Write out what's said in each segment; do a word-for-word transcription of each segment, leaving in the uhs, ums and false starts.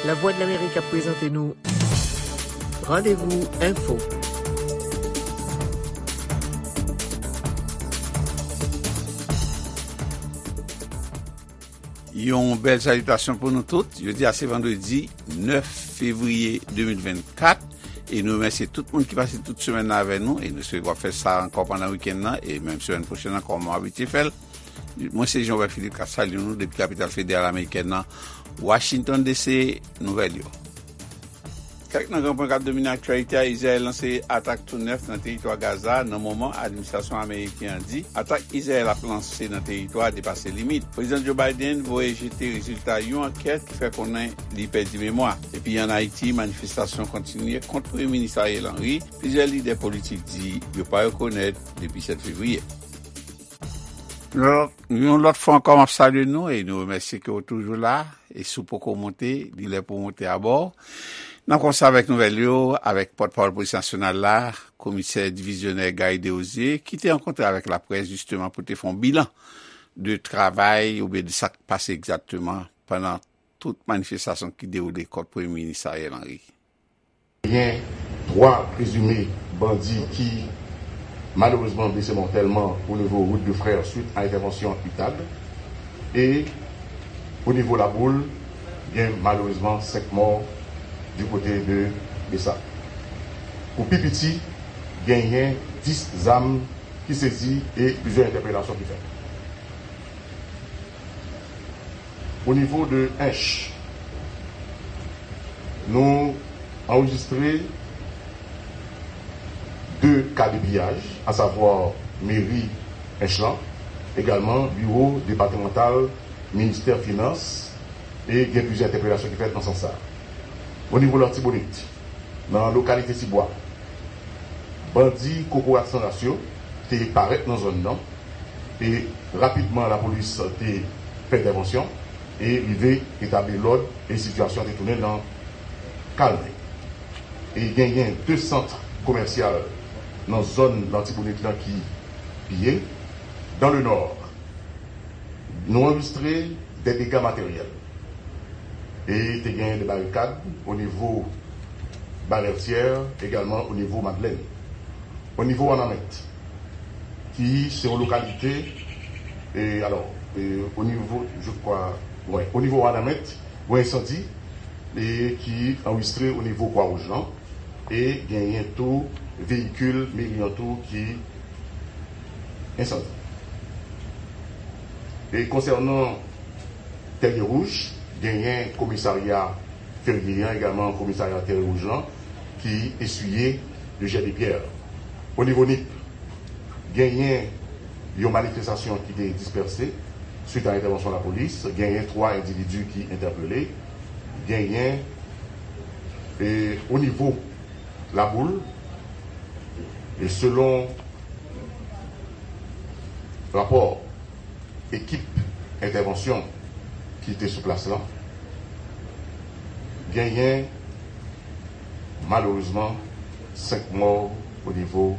Lavwadlamerik ap prezante nou Randevou Enfo. Yon bèl salitasyon pou nou tout. Jodi a se vandredi nèf fevriye de mil vennkat. E nou remèsye tout moun ki pase tout semèn nan avè nou. E nou espere w ap fè sa ankò pandan wikenn nan. E menm semèn pwochèn ankò, kòm w abitye fè l. Mwen se Jean Robert Philippe k ap salye nou depi kapital federal amerikèn nan, Washington D C. Nouvèl yo. Kèk nan gran pwen k ap domine aktyalite a: Izrayèl lanse atak tou nèf nan teritwa Gaza nan moman administrasyon ameriken an di atak Izrayèl ap lanse nan teritwa a depase limit. Prezidan Joe Biden voye jete rezilta yon ankèt ki fè konnen li pèdi memwa. Epi ann Ayiti, manifestasyon kontinye kont Premye Minis Ariel Henry. Plizyè lidè politik di yo pa rekonèt depi sèt fevriye. Yon lòt, yon lòt fwa ankò, m ap salye nou e nou remèsye ke w toujou la. E si w poko monte, li lè pou w monte abò. N ap kòmanse avèk nouvèl yo, avèk pòtpawòl Polis Nasyonal la, Komisè Divizyonè Garry Desrosiers, ki te rankontre avèk laprès, jisteman, pou te fè yon bilan de travay oubyen de sa k pase egzakteman pandan tout manifestasyon ki dewoule kont Premye Minis Ariel Henry. Genyen twa prezime bandi ki malerezman blese mòtèlman o nivo wout de Frè swit a entèvansyon UTAG. E o nivo Laboul, gen malerezman senk mò di kote de Besap. Pou pi piti, genyen dis zam ki sezi e plizyè entèpelasyon ki fèt. O nivo de Ench, nou anrejistre de ka de piyaj, asavwa meri Ench lan, egalman biwo depatmantal ministè finans, e gen plizyè entèpelasyon ki fèt nan sans sa a. O nivo Latibonit, nan lokalite Tibwa, bandi Kokorat San Ras yo te parèt nan zòn nan, e rapidman lapolis te fè entèvansyon e rive etabli lòd e sitiyasyon te tounen nan kalme. E genyen de sant komèsyal nan zòn Latibonit lan ki piye. Dans le Nord, nou anrejistre de dega materyèl. E te gen de barikad o nivo Balètyè, egalman o nivo Madlèn. O nivo Wanament, ki se yon lokalite, e, alò, e, o nivo, je crois, wè, o nivo Wanament, yon ensandi, e, ki anrejistre o nivo Kwa Wouj lan, e genyen tou veyikil meri an tou ki ensandi. E konsènan Tèrye Wouj, genyen komisarya Ferye an, egalman komisarya Tèrye Wouj lan, ki eswiye de jè de pyè. O nivo Nip, genyen yon manifestasyon ki te dispèse swit a entèvansyon lapolis, genyen twa endividi ki entèpele, genyen, e, o nivo Laboul, e selon rapò ekip entèvansyon ki te sou plas lan, genyen malerezman senk mò o nivo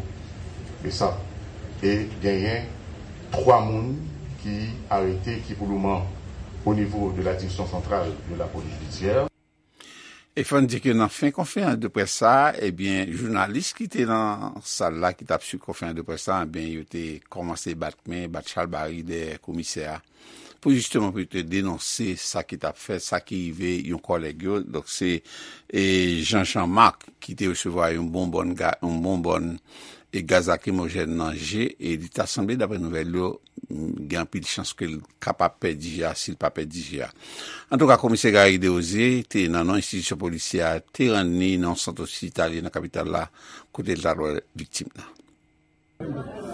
Besap e genyen twa moun ki arete, ki pou lemoman o nivo de la Direction Centrale de la Police Judiciaire. E fò n di ke nan fen konferans de près sa a, ebyen, jounalis ki te nan sal la, ki t ap swiv konferans de près sa a, ebyen, yo te kòmanse bat men, bat chalbari dèyè komisè a, pou jisteman pou yo te denonse sa ki t ap fèt, sa ki rive yon kòlèg yo. Donk, se, e, Jean Jean Marc ki te resevwa yon bonbòn ga-, yon bonbòn e gaz lakrimojèn nan je, e li ta sanble, daprè nouvèl yo, gen anpil chans ke l kapab pèdi je a, si l pa pèdi je a. Antouka, komisè Garry Desrosiers te nan non enstitisyon polisyè a, te rann li nan yon sant ospitalye nan kapital la, kote l ta dwe viktim nan.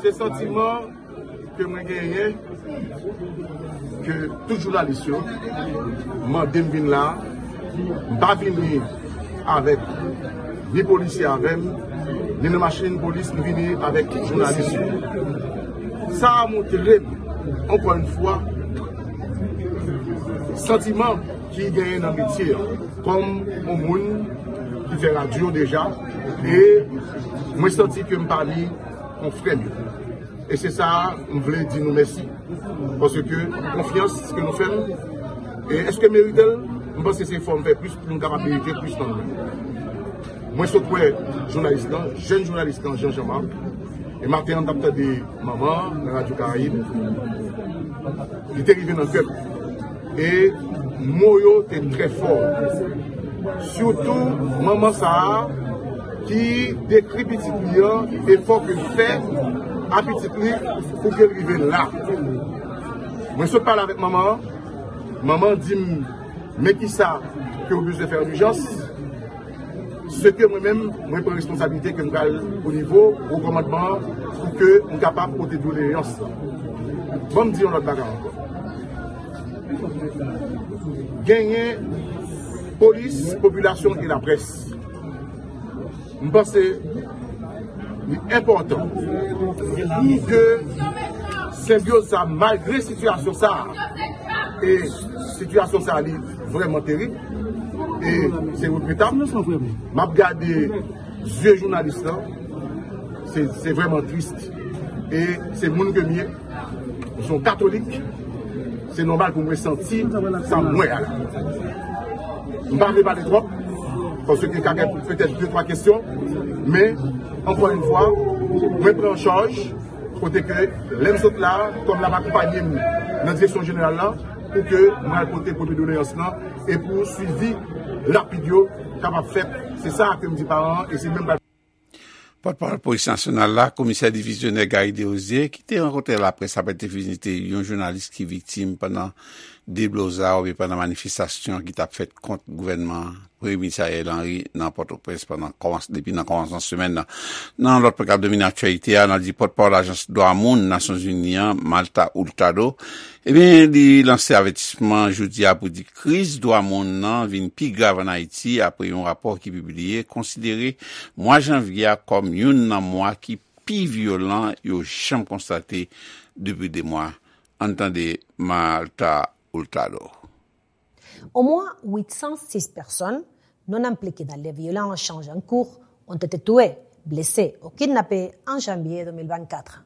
Se santiman ke mwen genyen, ke tout jounalis yo mande m vin la, m pa vini avèk ni polisye avè m, ni nan machin polis, m vini avèk jounalis yo. Sa a montre m, ankò yon fwa, santiman ki genyen nan metye an, kòm yon moun ki fè radyo deja, e mwen santi ke m pami konfrè m yo. E se sa a, m vle di nou mèsi. Paske konfyans ke nou fè m, e èske m merite l? M panse se fò m fè plis pou m kapab merite plis nan mwen. Mwen sot wè jounalis lan, jèn jounalis lan, Jean Jean Marc. E maten an, m t ap tande manman nan Radyo Karayib. Li te rive nan kè m. E mo yo te trè fò. Sitou manman sa a ki dekri pitit li an, efò ke l fè a pitit li pou ke l rive la. Mwen sot pale avèk manman an. Manman an di m, men kisa ke w bezwen fè an ijans. Se ke mwen menm, mwen pran responsablite ke m pral o nivo wo kòmandman an pou ke m kapab pote doleyans lan. Ban m di yon lòt bagay ankò. Genyen polis, popilasyon e laprès. M panse li enpòtan pou ke senbyoz sa, malgre sitiyasyon sa, e sitiyasyon sa li vrèman terib, e se regretab. M ap gade zye jounalis lan, se, se vrèman tris. E se moun ke m ye, m se yon katolik, se nòmal pou mwen santi sa m wè a la. M pa vle pale twòp, paske ka gen petèt de twa kesyon, men, ankò yon fwa, mwen pran an chaj, kote ke lè m sot la, kòm l ap akonpanye m nan direksyon jeneral la, pou ke mwen al pote premye doleyans lan, e pou swivi rapid yo kapab fèt. Se sa ke m di paran an, e se menm Pòtpawòl Polis Nasyonal la, Komisè Divizyonè Gary Desrosiers, ki te rankontre laprès apre l te vizite yon jounalis ki viktim pandan deblozay oubyen pandan manifestasyon ki t ap fèt kont gouvènman Premye Minis Ariel Henry nan Pòtoprens pandan kòmans-, depi nan kòmansman semèn nan. Nan lòt pwogram domine aktyalite a, n a di pòtpawòl Ajans Dwa Moun Nasyonzini an, Marta Hurtado, ebyen, li lanse avètisman jodi a pou di kriz dwa moun nan vin pi grav ann Ayiti apre yon rapò ki pibliye konsidere mwa janvye a kòm youn nan mwa ki pi vyolan yo janm konstate depi de mwa. Ann tande Marta Hurtado. Au moins huit cent six personnes non impliquées dans les violences en Chanjancourt ont été tuées, blessées ou kidnappées en janvier deux mille vingt-quatre.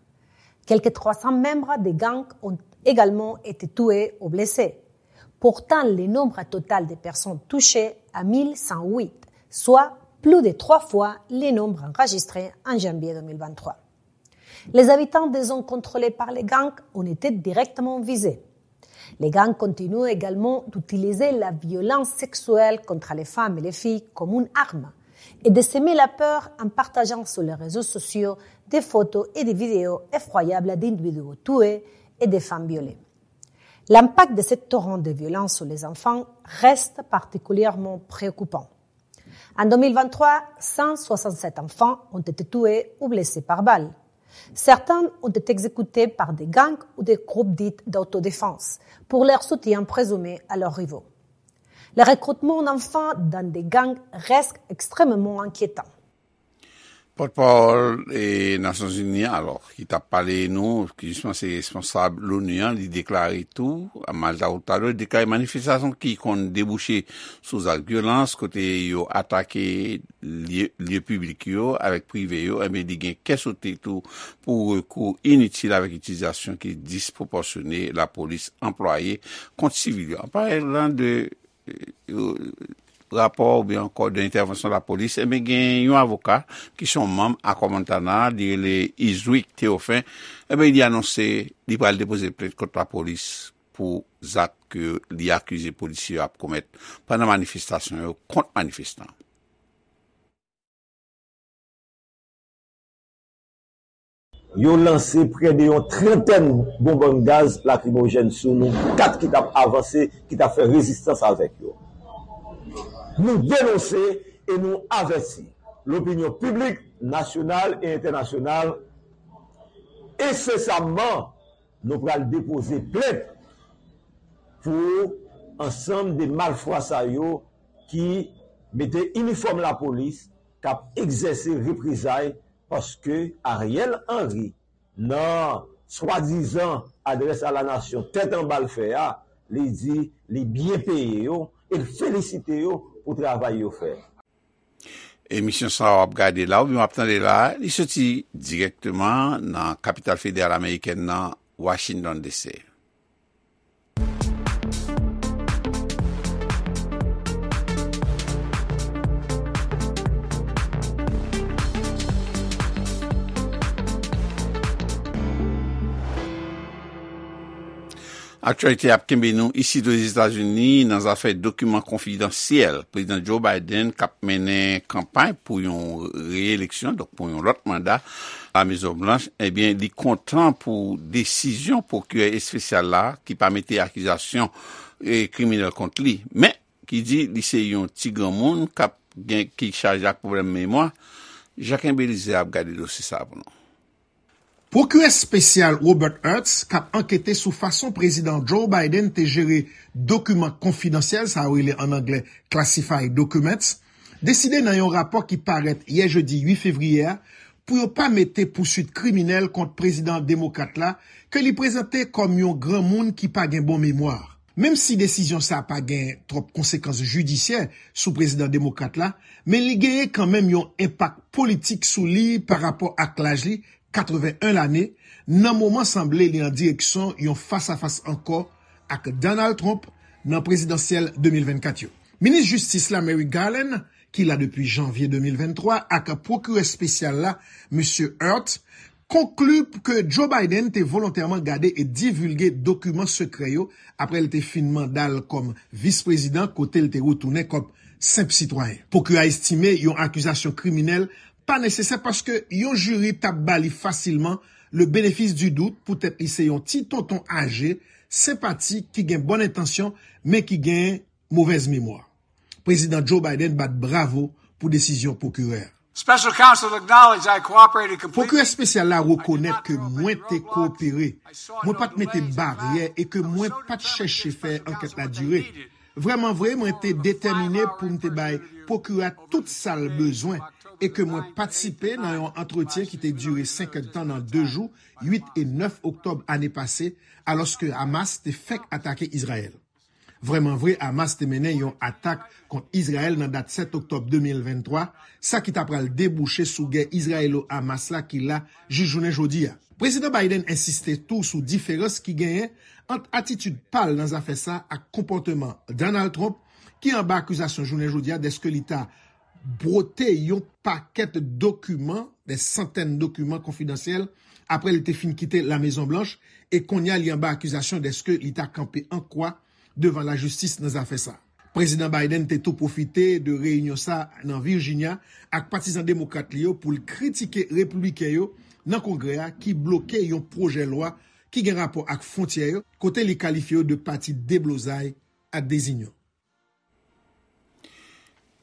Quelques trois cents membres des gangs ont également été tués ou blessés. Pourtant, le nombre total des personnes touchées à mille cent huit, soit plus de trois fois le nombre enregistré en janvier deux mille vingt-trois. Les habitants des zones contrôlées par les gangs ont été directement visés. Les gangs continuent également d'utiliser la violence sexuelle contre les femmes et les filles comme une arme et de semer la peur en partageant sur les réseaux sociaux des photos et des vidéos effroyables d'individus tués et de femmes violées. L'impact de ce torrent de violence sur les enfants reste particulièrement préoccupant. En deux mille vingt-trois, cent soixante-sept enfants ont été tués ou blessés par balles. Certains ont été exécutés par des gangs ou des groupes dits d'autodéfense pour leur soutien présumé à leurs rivaux. Le recrutement d'enfants dans des gangs reste extrêmement inquiétant. Pòtpawòl, e, Nasyonzini an, alò, ki t ap pale nou, ki jisman se responsab l'ONU an, li deklare tou, Marta Hurtado, li deklare manifestasyon ki konn debouche sou zak vyolans, kote yo atake lye, lye piblik yo avèk prive yo, enben, li gen kè sote tou pou rekou initil avèk itilizasyon ki dispwopòsyone lapolis anplwaye kont sivil yo. An palan de, e, rapò oubyen ankò de entèvansyon lapolis, enben, gen yon avoka ki se yon manm Akò Montana, li rele Iswick Théophin, enben, li anonse li pral depoze plent kont lapolis pou zak ke li akize polisye yo ap komèt pandan manifestasyon yo kont manifestan. Yo lanse prè de yon trantèn bonbòn gaz lakrimojèn sou nou kat ki t ap avanse, ki t ap fè rezistans avèk yo. Nou denonse e nou avèti lopinyon piblik nasyonal e entènasyonal ensesamman. Nou pral depoze plent pou ansanm de malfwa sa yo ki mete inifòm lapolis, k ap egzèse reprezay, paske Ariel Henry, nan swadizan adrès a la nasyon tèt anba l fè a, li di li byen peye yo e l felisite yo pou travay yo fè. Emisyon sa a w ap gade la oubyen w ap tande la, li soti dirèkteman nan kapital federal amerikèn nan, Washington D C. Aktyalite ap kenbe nou isit Ozetazini nan zafè dokiman konfidansyèl. Prezidan Joe Biden, k ap mennen kanpay pou yon reyeleksyon, donk pou yon lòt manda, Lamezon Blanch, ebyen, li kontan pou desizyon pwokirè espesyal la, ki pa mete akizasyon, e, kriminèl kont li, men ki di li se yon ti granmoun k ap gen, ki chaje ak pwoblèm memwa. Jacques Belizaire ap gade dosye sa a pou nou. Pwokirè espesyal Robert Hertz, k ap ankete sou fason Prezidan Joe Biden te jere dokiman konfidansyèl, sa yo rele ann anglè classified documents, deside nan yon rapò ki parèt yè jedi uit fevriye a pou yo pa mete pouswit kriminèl kont prezidan demokrat la, ke li prezante kòm yon granmoun ki pa gen bon memwa. Menm si desizyon sa a pa gen twòp konsekans jidisyè sou prezidan demokrat la, men li genyen kanmenm yon enpak politik sou li parapò ak laj li, katreven en lane, nan moman sanble li an direksyon yon fasafas ankò ak Donald Trump nan prezidansyèl de mil vennkat yo. Minis Jistis la, Merrick Garland, ki la depi janvye de mil venntwa, ak pwokirè espesyal la, Mesye Hertz, konkli ke Joe Biden te volontèman gade e divilge dokiman sekrè yo apre l te fin manda l kòm vis prezidan, kote l te retounen kòm senp sitwayen. Pwokirè a estime yon akizasyon kriminèl pa nesesè paske yon jiri t ap ba li fasilman le bénéfice du doute poutèt li se yon ti tonton aje, senpatik, ki gen bòn entansyon, men ki gen movèz memwa. Prezidan Joe Biden bat bravo pou desizyon pwokirè a. Special counsel acknowledged I cooperated completely. Pwokirè espesyal la rekonèt ke mwen te koopere, mwen pa t mete baryè e ke mwen pa t chèche fè ankèt la dire. Vrèman vre, mwen te detèmine pou m te bay pwokirè a tout sa l bezwen e ke mwen patisipe nan yon antretyen ki te dire senk èdtan nan de jou, uit e nèf oktòb ane pase, alòske Hamas te fèk atake Izrayèl. Vrèman vre, Hamas te mennen yon atak kont Izrayèl nan dat sèt oktòb de mil venntwa, sa ki ta pral debouche sou gè Izrayelo-Hamas la ki la jis jounen jodi a. Prezidan Biden ensiste tou sou diferans ki genyen ant atitid pa l nan zafè sa ak konpòteman Donald Trump, ki anba akizasyon jounen jodi a dèske li ta bwote yon pakèt dokiman, de santèn dokiman konfidansyèl, apre li te fin kite Lamezon Blanch, e kounye a li anba akizasyon dèske li ta kanpe an kwa devan lajistis nan zafè sa. Prezidan Biden te tou pwofite de reyinyon sa nan Virginia ak patizan demokrat li yo pou l kritike repibliken yo nan Kongrè a ki bloke yon pwojè lwa ki gen rapò ak fwontyè yo, kote li kalifye yo de pati deblozay ak dezinyon.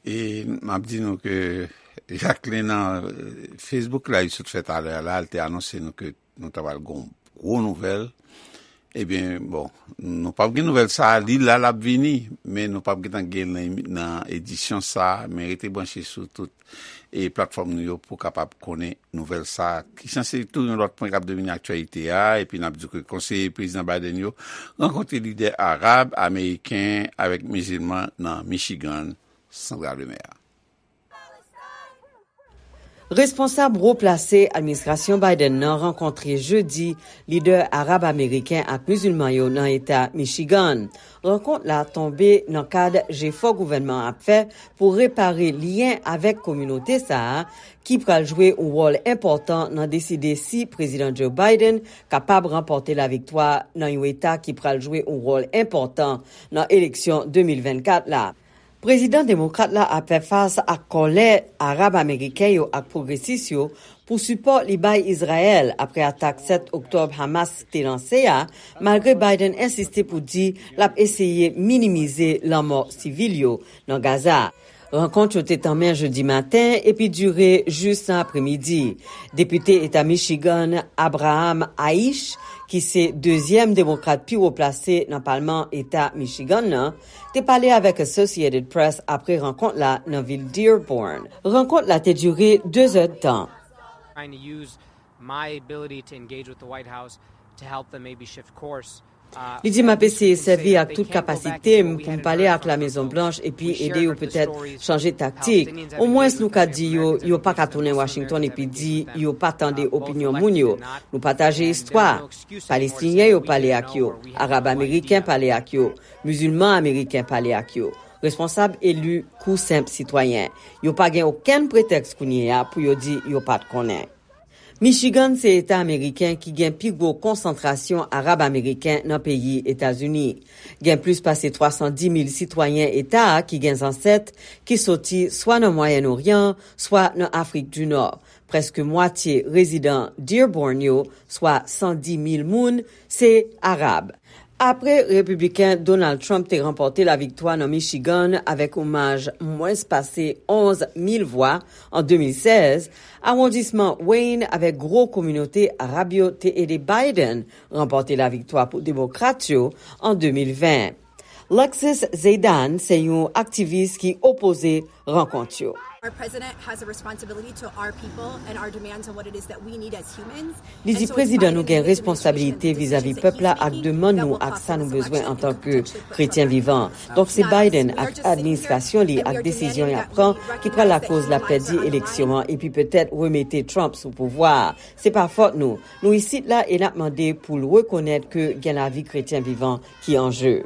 E m ap di nou ke Jacqueline nan, eh, Facebook la, li sot fè talè a la, li te anonse nou ke nou ta pral gon gwo nouvèl. Ebyen, bon, nou p ap gen nouvèl sa a, li la, l ap vini, men nou p ap gentan gen l nan, nan edisyon sa a, men rete branche sou tout e platfòm nou yo pou kapab konnen nouvèl sa a, ki sanse tou yon lòt pwen k ap domine aktyalite a, epi n ap di ke konseye prezidan Biden yo rankontre lidè arab, ameriken avèk mizilman nan Michigan, Sandra Lemaire. Responsab wo plase administrasyon Biden nan rankontre jedi lidè arab ameriken ak mizilman yo nan eta Michigan. Rankont la tonbe nan kad jefò gouvènman an ap fè pou repare lyen avèk kominote sa a, ki pral jwe yon wòl enpòtan nan deside si Prezidan Joe Biden kapab ranpòte laviktwa nan yon eta ki pral jwe yon wòl enpòtan nan eleksyon de mil vennkat la. Prezidan demokrat la ap fè fas ak kòlè Arab ameriken yo ak pwogresis yo pou sipò li bay Izrayèl apre atak sèt oktòb Hamas te lanse a, malgre Biden ensiste pou di l ap eseye minimize lanmò sivil yo nan Gaza. Rankont yo te tanmen jedi maten epi dire jis nan apremidi. Depite eta Michigan, Abraham Aish, ki se dezyèm demokrat pi wo plase nan palman eta Michigan nan, te pale avèk Associated Press apre rankont la nan vil Dearborn. Rankont la te dire de zèdtan. Trying to use my ability to engage with the White House to help them maybe shift course. Li di, "M ap eseye sèvi ak tout kapasite m pou m pale ak Lamezon Blanch epi ede yo petèt chanje taktik. Omwens nou ka di yo, yo pa ka tounen Washington epi di yo pa tande opinyon moun yo. Nou pataje istwa. Palestinyen yo pale ak yo, Arab ameriken pale ak yo, mizilman ameriken pale ak yo, responsab eli kou senp sitwayen. Yo pa gen okenn pretèks kounye a pou yo di yo pa t konnen." Michigan se eta ameriken ki gen pi gwo konsantrasyon Arab ameriken nan peyi Etazini. Gen plis pase twa san di mil sitwayen eta a ki gen zansèt ki soti swa nan Mwayèn Oryan, swa nan Afrik di Nò. Prèske mwatye rezidan Dearborn yo, swa san di mil moun, se Arab. Apre Repibliken Donald Trump te ranpòte laviktwa nan Michigan avèk yon maj mwens pase onz mil vwa an de mil sèz, awondisman Wayne avèk gwo kominote Arab yo te ede Biden ranpòte laviktwa pou Demokrat yo an de mil ven. Lexus Zeydan se yon aktivis ki opoze rankont yo. Our president has a responsibility to our people and our demands on what it is that we need as humans. Li di prezidan nou gen responsabilite vizavi pèp la ak demann nou ak sa nou bezwen antanke kretyen vivan. Donk se Biden ak administrasyon li ak desizyon y ap pran ki pral lakoz l ap pèdi eleksyon an epi petèt remete Trump sou pouvwa a. Se pa fòt nou. Nou isit la e n ap mande pou l rekonèt ke gen lavi kretyen vivan ki an je.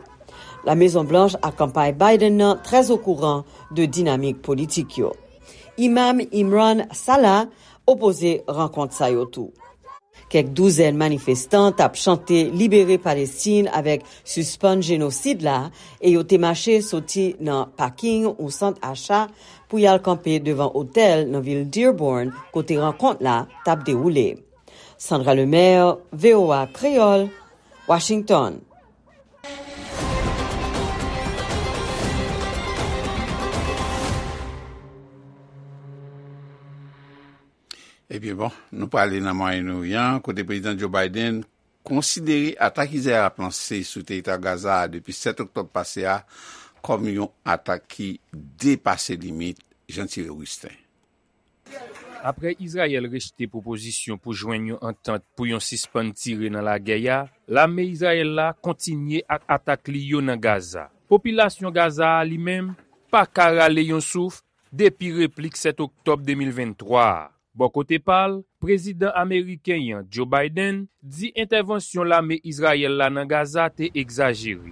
La Mezon Blanch ak kanpay Biden nan trè okouran de dinamik politik yo. Imam Imran Salah opoze rankont sa yo tou. Kèk douzèn manifestan t ap chante Libere Palestin avèk Sispann Jenosid la e yo te mache soti nan paking yon sant acha pou y al kanpe devan otèl nan vil Dearborn kote rankont la t ap dewoule. Sandra Lemaire, V O A Kreyòl, Washington. Ebyen bon, nou prale nan Mwayen Oryan, kote Prezidan Joe Biden konsidere atak Izrayèl ap lanse sou teritwa Gaza a depi sèt oktòb pase a kòm yon atak ki depase limit. Jean Thierry Augustin. Apre Izrayèl rejte pwopozisyon pou jwenn yon antant pou yon sispann tire nan lagè a, lame Izrayèl la kontinye ak atak li yo nan Gaza. Popilasyon Gaza a, li menm, pa ka rale yon souf depi replik sèt oktòb de mil venntwa a. Bò kote pa l, prezidan ameriken an, Joe Biden, di entèvansyon lame Izrayèl la nan Gaza te egzajere.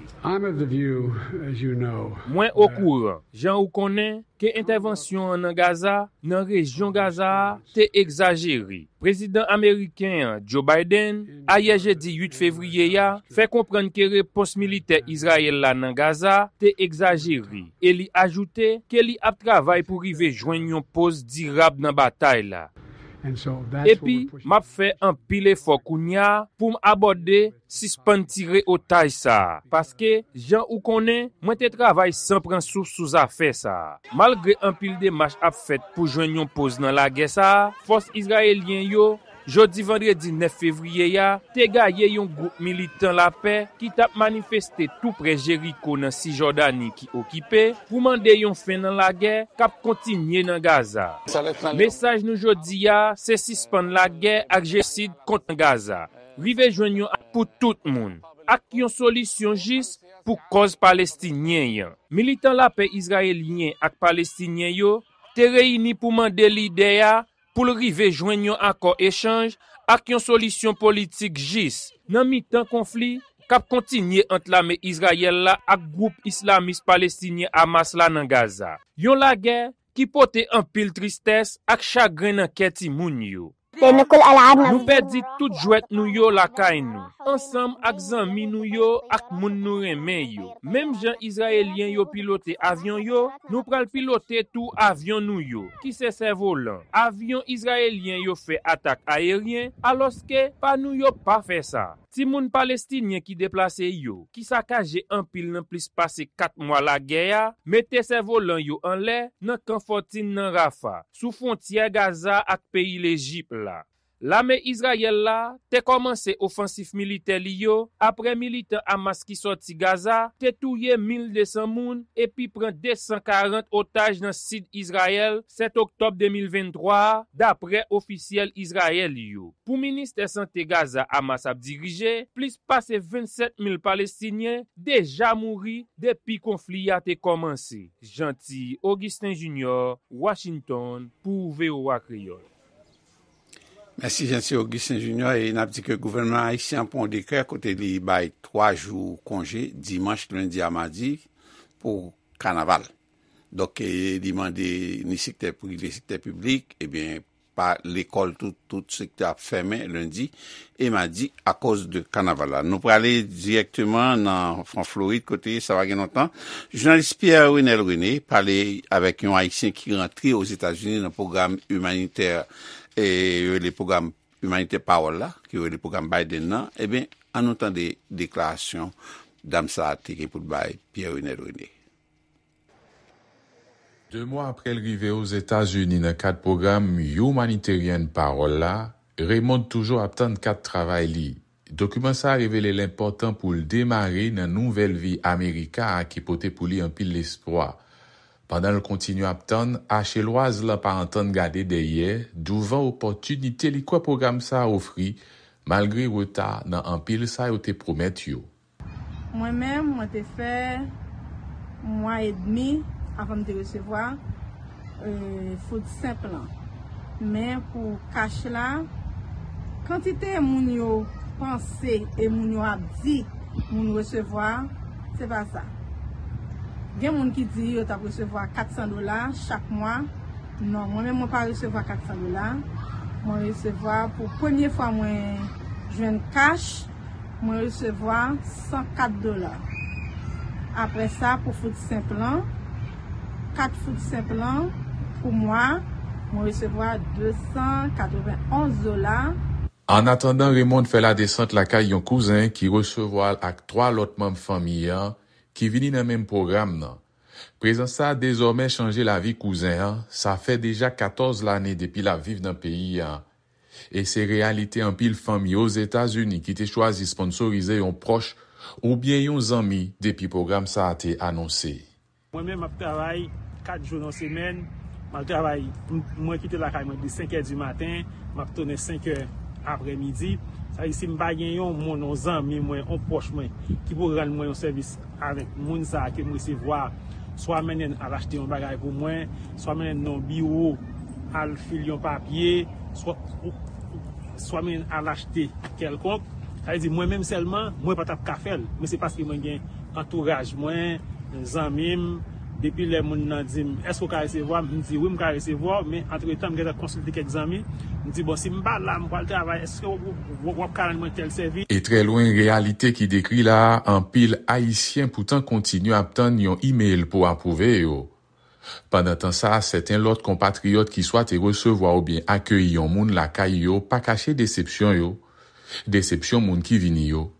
Mwen okouran, jan ou konnen, ke entèvansyon an nan Gaza, nan rejyon Gaza a, te egzajere. Prezidan ameriken an, Joe Biden, ayè jedi uit fevriye a, fè konprann ke repons militè Izrayèl la nan Gaza te egzajere, e li ajoute ke li ap travay pou rive jwenn yon poz dirab nan batay la. Epi, m ap fè anpil efò kounye a pou m abòde sispann tire otaj sa a, paske, jan ou konnen, mwen te travay san pran souf sou zafè sa a. Malgre anpil demach ap fèt pou jwenn yon poz nan lagè sa a, fòs izrayelyen yo, jodi vandredi nèf fevriye a, te gaye yon gwoup militan lapè ki t ap manifeste tou prè Jeriko nan Sijòdani ki okipe, pou mande yon fen nan lagè k ap kontinye nan Gaza. Mesaj nou jodi a se sispann lagè ak jenosid kont Gaza. Rive jwenn yon ak pou tout moun, ak yon solisyon jis pou kòz palestinyen an. Militan lapè izrayelyen ak palestinyen yo te reyini pou mande lidè a pou l rive jwenn yon akò echanj ak yon solisyon politik jis nan mitan konfli k ap kontinye ant lame Izrayèl la ak gwoup islamis palestinyen Hamas la nan Gaza. Yon lagè ki pote anpil tristès ak chagren nan kè timoun yo. Nou pèdi tout jwèt nou yo lakay nou, ansanm ak zanmi nou yo ak moun nou renmen yo. Menm jan Izrayelyen yo pilote avyon yo, nou pral pilote tou avyon nou yo, ki se sèvolan. Avyon izrayelyen yo fè atak ayeryen, alòske pa nou yo pa fè sa. Timoun palestinyen ki deplase yo, ki sakaje anpil nan plis pase kat mwa lagè a, mete sèvolan yo anlè nan kan fòtin nan Rafa, sou fwontyè Gaza ak peyi Lejip la. Lame Izrayèl la te kòmanse ofansif militè li yo apre militan Hamas ki sòti Gaza te touye mil de san moun epi pran de san karant otaj nan sid Izrayèl sèt oktòb de mil venntwa a, dapre ofisyèl Izrayèl yo. Pou ministè sante Gaza Hamas ap dirije, plis pase vennsèt mil Palestinyen deja mouri depi konfli a te kòmanse. Jean Ti Augustin Junior, Washington, pou V O A Kreyòl. Mèsi Jean Ti Augustin Junior e n ap di ke gouvènman ayisyen an pran yon dekrè kote li bay twa jou konje, dimanch, lendi a madi, pou kanaval. Donk, e, li mande ni sektè prive, sektè piblik, ebyen, pa lekòl tou, tout sektè ap fèmen lendi e madi akoz de kanaval la. Nou prale dirèkteman nan Fran Florid, kote sa pa gen lontan, jounalis Pierre Renel René pale avèk yon Ayisyen ki rantre Ozetazini nan pwogram imanitè, e yo rele pwogram imanitè Pawòl la, ki yo rele pwogram Biden nan. Ebyen, ann nou tande deklarasyon dam sa a te gen pou l bay Pierre Renel René. De mwa apre l rive Ozetazini nan kad pwogram Humanitarian Pawòl la, Raymond toujou ap tann kat travay li. Dokiman sa a revele l enpòtan pou l demare nan nouvèl vi Amerika a ki pote pou li anpil lespwa. Pandan l kontinye ap tann, Achelwaz la pa antann gade dèyè douvan opòtinite li kwè pwogram sa a ofri, malgre reta nan anpil sa yo te pwomèt yo. Mwen menm, mwen te fè mwa edmi avan m te resevwa food stamp lan. Men pou kach la, kantite moun yo panse e moun yo ap di moun resevwa, se pa sa. Gen moun ki di yo t ap resevwa kat san dola chak mwa. Non, mwen menm mwen pa resevwa kat san dola. Mwen resevwa pou premye fwa mwen jwenn kach, mwen resevwa san kat dola. Apre sa, pou food stamp lan, kat food stamp lan pou mwa, mwen resevwa de san katrevenn onz dola. Annatandan, Raymond fè ladesant lakay yon kouzen ki resevwa l ak twa lòt manm fanmi an ki vini nan menm pwogram nan. Prezans sa a dezòmè chanje lavi kouzen an, sa fè deja katòz lane depi l ap viv nan peyi a. E se reyalite anpil fanmi Ozetazini ki te chwazi sponsorize yon pwòch oubyen yon zanmi depi pwogram sa a te anonse. Mwen menm, m ap travay kat jou nan semèn. M al travay, m- mwen kite lakay mwen depi senk è di maten, m ap tounen senk è aprèmidi. Sa vle di, si m pa gen yon moun, yon zanmi mwen, yon pwòch mwen, ki pou rann mwen yon sèvis avèk moun sa a ke m resevwa, swa mennen l al achte yon bagay pou mwen, swa mennen l nan yon biwo, al fil yon papye, swa, swa mennen l al achte kèlkonk. Sa vle di, mwen menm sèlman, mwen pa t ap ka fè l. Men se paske mwen gen antouraj mwen, zanmi m, depi lè moun nan di m, èske w ka resevwa m? M di, wi, m ka resevwa w, men antretan, m gentan konsilte kèk zanmi. M di, bon, si m pa la, m pral travay, èske w, w, w ap ka rann mwen tèl sèvis? E trè lwen reyalite ki dekri la a, anpil Ayisyen poutan kontinye ap tann yon imèl pou apwouve yo. Pandan tan sa a, sèten lòt konpatriyòt ki swa te resevwa oubyen akeyi yon moun lakay yo pa kache desepsyon yo, desepsyon moun ki vini yo,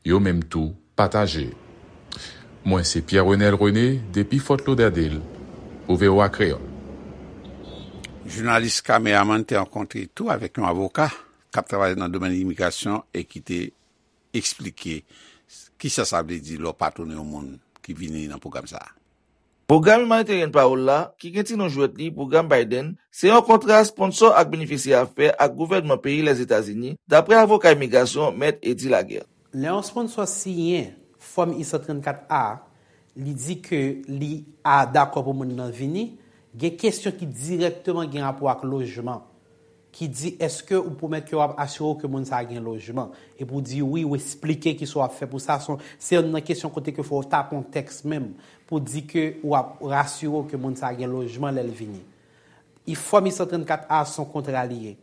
yo menm tou pataje. Mwen se Pierre Renel René depi Fort Lauderdale pou V O A Kreyòl. Jounalis Kameramann te rankontre tou avèk yon avoka k ap travay nan domèn imigrasyon e ki te eksplike kisa sa vle di lè w patwone yon moun ki vini nan pwogram sa a. Pwogram Humanitarian Parole la, ki gen ti non jwèt li Pwogram Biden, se yon kontra sponsò ak benefisyè a fè ak gouvènman peyi Lèzetazini, dapre avoka imigrasyon Mèt Eddy Laguerre. Lè yon sponsò siyen Fòm I san trannkat A, li di ke li a dakò pou moun nan vini, gen kesyon ki dirèkteman gen rapò ak lojman. Ki di èske ou pwomèt ke w ap asire w ke moun sa a gen lojman? Epi w di wi, w esplike kisa w ap fè pou sa. Se yon, se youn nan kesyon kote ke fò w ta kontèks menm pou di ke w ap rasire w ke moun sa a gen lojman lè l vini. Fòm I san trannkat A se yon kontra li ye,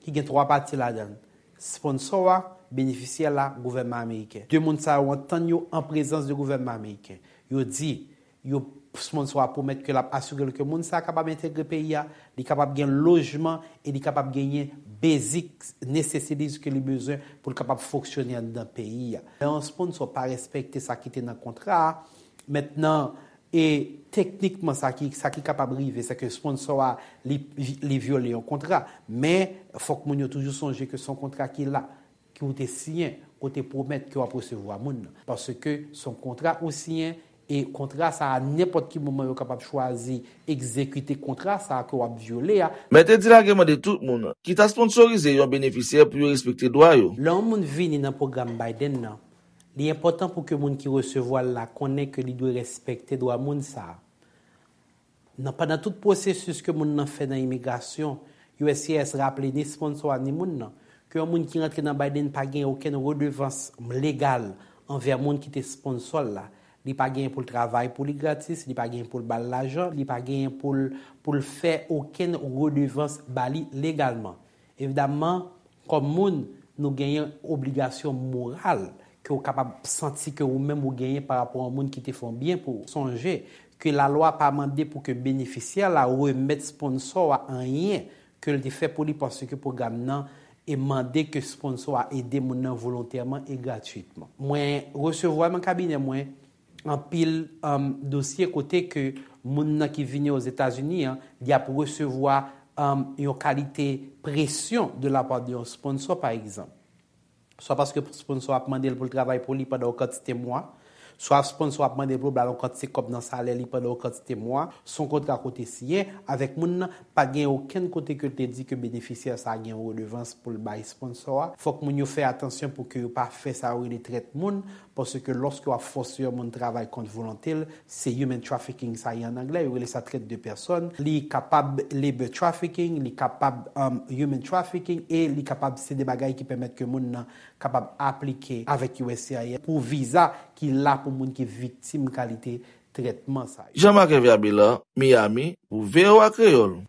ki gen twa pati ladan l, sponsò a, benefisyè la, gouvènman ameriken. De moun sa yo antann yo an prezans de gouvènman ameriken. Yo di, yo sponsò a pwomèt ke l ap asire l ke moun sa a kapab entegre peyi a, li kapab gen lojman e li kapab genyen basic necessities ke li bezwen pou l kapab fonksyone anndan peyi a. Lè yon sponsò pa respekte sa ki te nan kontra a, mentnan, e teknikman sa ki, sa ki kapab rive, se ke sponsò a, li, li vyole yon kontra. Men, fòk moun yo toujou sonje ke se yon kontra ki la, ke w te siyen, ke w te pwomèt ke w ap resevwa moun nan. Paske se yon kontra ou siyen, e kontra sa a, nenpòt ki moman yo kapab chwazi egzekite kontra sa a ke w ap vyole a. Mèt Eddy Laguerre mande tout moun ki ta sponsorize yon benefisyè pou yo respekte dwa yo. Lè yon moun vini nan pwogram Biden nan, li enpòtan pou ke moun ki resevwa l la konnen ke li dwe respekte dwa moun sa a. Nan, pandan tout pwosesis ke moun nan fè nan imigrasyon, U S C I S raple ni sponsò a ni moun nan ke yon moun ki rantre nan Biden pa gen okenn redevans legal anvè moun ki te sponsò l la. Li pa genyen pou l travay pou li gratis, li pa genyen pou l ba l lajan, li pa genyen pou l, pou l fè okenn redevans ba li legalman. Evidamman, kòm moun, nou genyen obligasyon moral ke w kapab santi ke ou menm ou genyen pa rapò a yon moun ki te fè yon byen pou ou. Sonje ke lalwa pa mande pou ke benefisyè la remèt sponsò a anyen ke l te fè pou li, paske pwogram nan e mande ke sponsò a ede moun nan volontèman e gratwitman. Mwen resevwa nan kabinè mwen anpil, um, dosye kote ke moun nan ki vini Ozetazini an, li ap resevwa, um, yon kalite presyon de la part de yon sponsò, pa egzanp. Swa paske sponsò ap mande l pou l travay pou li pandan yon kantite mwa, swa sponsò ap mande l pou l ba l yon kantite kòb nan salè li pandan yon kantite mwa, se yon kontra kote siyen avèk moun nan, pa gen okenn kote ke l te di ke benefisyè sa a gen yon redevans pou l bay sponsò a. Fòk moun yo fè atansyon pou ke yo pa fè sa yo rele trèt moun, paske lòske w ap fòse yon moun travay kont volonte l, se human trafficking sa ye an anglè, yo rele sa traite de personnes. Li kapab labor trafficking, li kapab, um, human trafficking, e li kapab se de bagay ki pèmèt ke moun nan kapab aplike avèk U S C I S pou viza ki la pou moun ki viktim kalite trètman sa yo. Jean-Marc Hervé Abélard, Miami, pou V O A Kreyòl.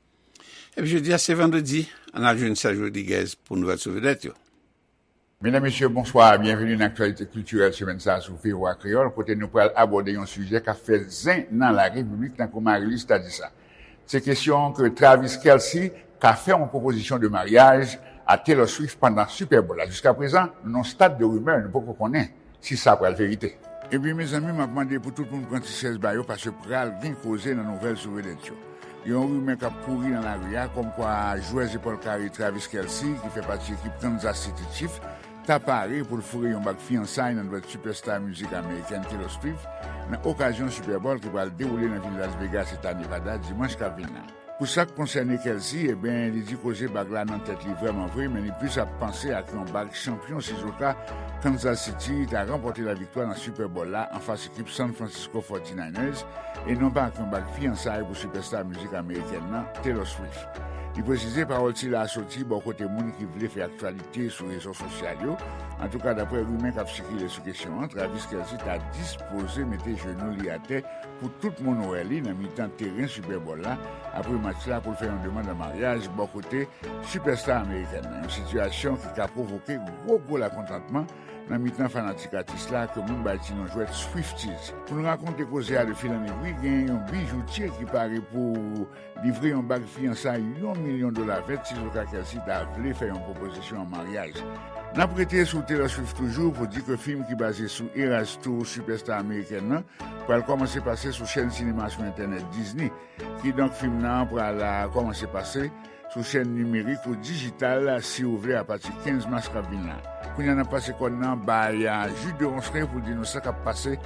Epi jodi a, se vandredi, ann al jwenn Serge Rodriguez pou nouvèl sou vedèt yo. Medam, mesye, bonswa, byenveni nan aktyalite kiltirèl semèn sa a sou V O A Kreyòl, kote nou pral abòde yon sijè k ap fè zen nan larepiblik, tankou Marie-Luce ta di sa. Se kesyon ke Travis Kelce ka fè yon pwopozisyon de maryaj a Taylor Swift pandan Super Bowl la. Jiskaprezan, nou nan yon stad de rimè, nou poko konnen si sa pral verite. Epi, mezanmi, m ap mande pou tout moun pran ti chèz ba yo, paske pral gen koze nan nouvèl sou vedèt yo. Gen yon rimè k ap kouri nan lari a, kòmkwa jwè zepòl kare Travis Kelce, ki fè pati ekip Kansas City Chiefs, ta pare pou l foure yon bag fiyansay nan dwèt sipèsta mizik amerikèn Taylor Swift, nan okazyon Super Bowl ki pral dewoule nan vil Las Vegas, eta Nevada, dimanch k ap vin la. Pou sa k konsène Kelce, ebyen, li di koze bag la nan tèt li vrèman vre, men li plis ap panse ak yon bag chanpyon sizoka Kansas City ta ranpòte laviktwa nan Super Bowl la anfas ekip San Francisco forty-niners, e non pa ak yon bag fiyansay pou sipèsta mizik amerikèn nan, Taylor Swift. Li presize pawòl sila a soti bò kote moun ki vle fè aktyalite sou rezo sosyal yo. Antouka, daprè rimè k ap sikile sou kesyon an, Travis Kelce ta dispoze mete jenou li atè pou tout moun wè li nan mitan teren Super Bowl la, apre match la, pou l fè yon demann an maryaj bò kote sipèsta amerikèn nan, yon sitiyasyon ki ka pwovoke gwo, gwo lakontantman nan mitan fanatik atis la, ke moun bay ti non jwèt Swifties. Pou n rakonte koze a de fil an egwi, gen yon bijoutye ki pare pou livre yon bag fiyansay yon milyon dola vèt sizoka Kelce ta vle fè yon pwopozisyon an maryaj. N ap rete sou Taylor Swift toujou pou di ke fim ki baze sou Eras Tour, sipèsta amerikèn nan, pral kòmanse pase sou chèn sinema sou entènèt Disney. Kidonk, fim nan pral, a, kòmanse pase sou chèn nimerik ou dijital, si w vle, apati kenz mas k ap vin la. Kounye a, n ap pase kòn nan bay, a, Jude de Ronceray pou l di nou sa k ap pase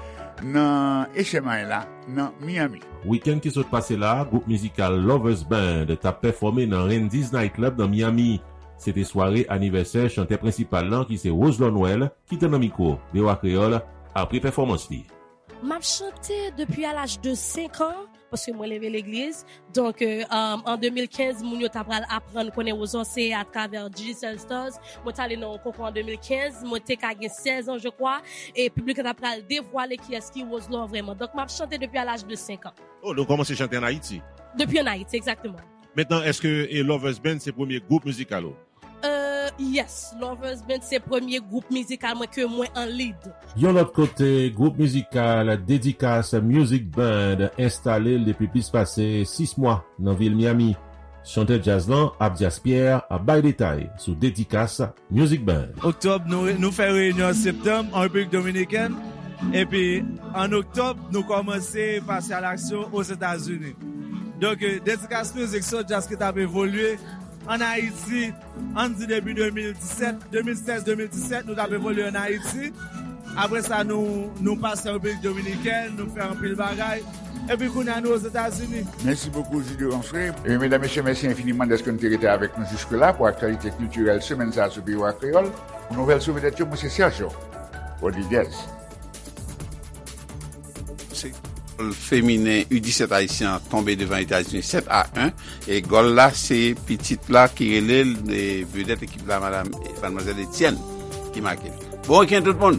nan H M I la, nan Miami. Wikenn ki sot pase la, gwoup mizikal Lovers Band t ap pèfòme nan Randy's Night Club nan Miami. Se te sware anivèsè chantè prensipal lan, ki se Roselot Noël, ki te nan mikwo V O A Kreyòl apre pèfòmans li. M ap chante depi a laj de senk an, paske mwen leve legliz. Donk, euh, um, an de mil kenz, moun yo ta pral aprann konnen Roselot se atravè Digicel Stars. Mwen t ale nan yon konkou an de mil kenz, mwen te ka gen sèz an, je crois, e piblik la ta pral devwale kiyès ki Roselot vrèman. Donk, m ap chante depi a laj de senk an. Oh, donk ou kòmanse chante an Ayiti? Depi an Ayiti, egzakteman. Mentnan, èske, e, Lovers Band se premye gwoup mizikal ou? Euh, yes, Lovers Band se premye gwoup mizikal mwen ke mwen an lead. Yon lòt kote, gwoup mizikal Dedikas Music Band enstale l depi plis pase sis mwa nan vil Miami. Chantè djaz lan, Abdias Pierre, ap bay detay sou Dedikas Music Band. Oktòb, nou, nou fè reyinyon an septanm an Repiblik Dominikèn. Epi, an oktòb, nou kòmanse pase alaksyon Ozetazini. Donk, euh, Dedikas Music se yon djaz ki t ap evolye an Ayiti, ann di depi de mil disèt, de mil sèz, de mil disèt, nou t ap evolye an Ayiti. Apre sa, nou, nou pase an Repiblik Dominikèn, nou fè anpil bagay. Epi kounye a, nou Ozetazini. Mèsi bokou, Jude Ronceray. E medam, mesye, mèsi enfiniman dèske nou te rete avèk nou jiske la pou aktyalite kiltirèl semèn sa a sou V O A Kreyòl. Pou nouvèl sou vedèt yo, mwen se Sergio Rodriguez. Se feminen U disèt ayisyen an tonbe devan Etazini sèt a en. E gòl la, se pitit la ki rele l, e vedèt ekip la, madam, madmwazèl Etienne, ki make l. Bon wikenn tout moun!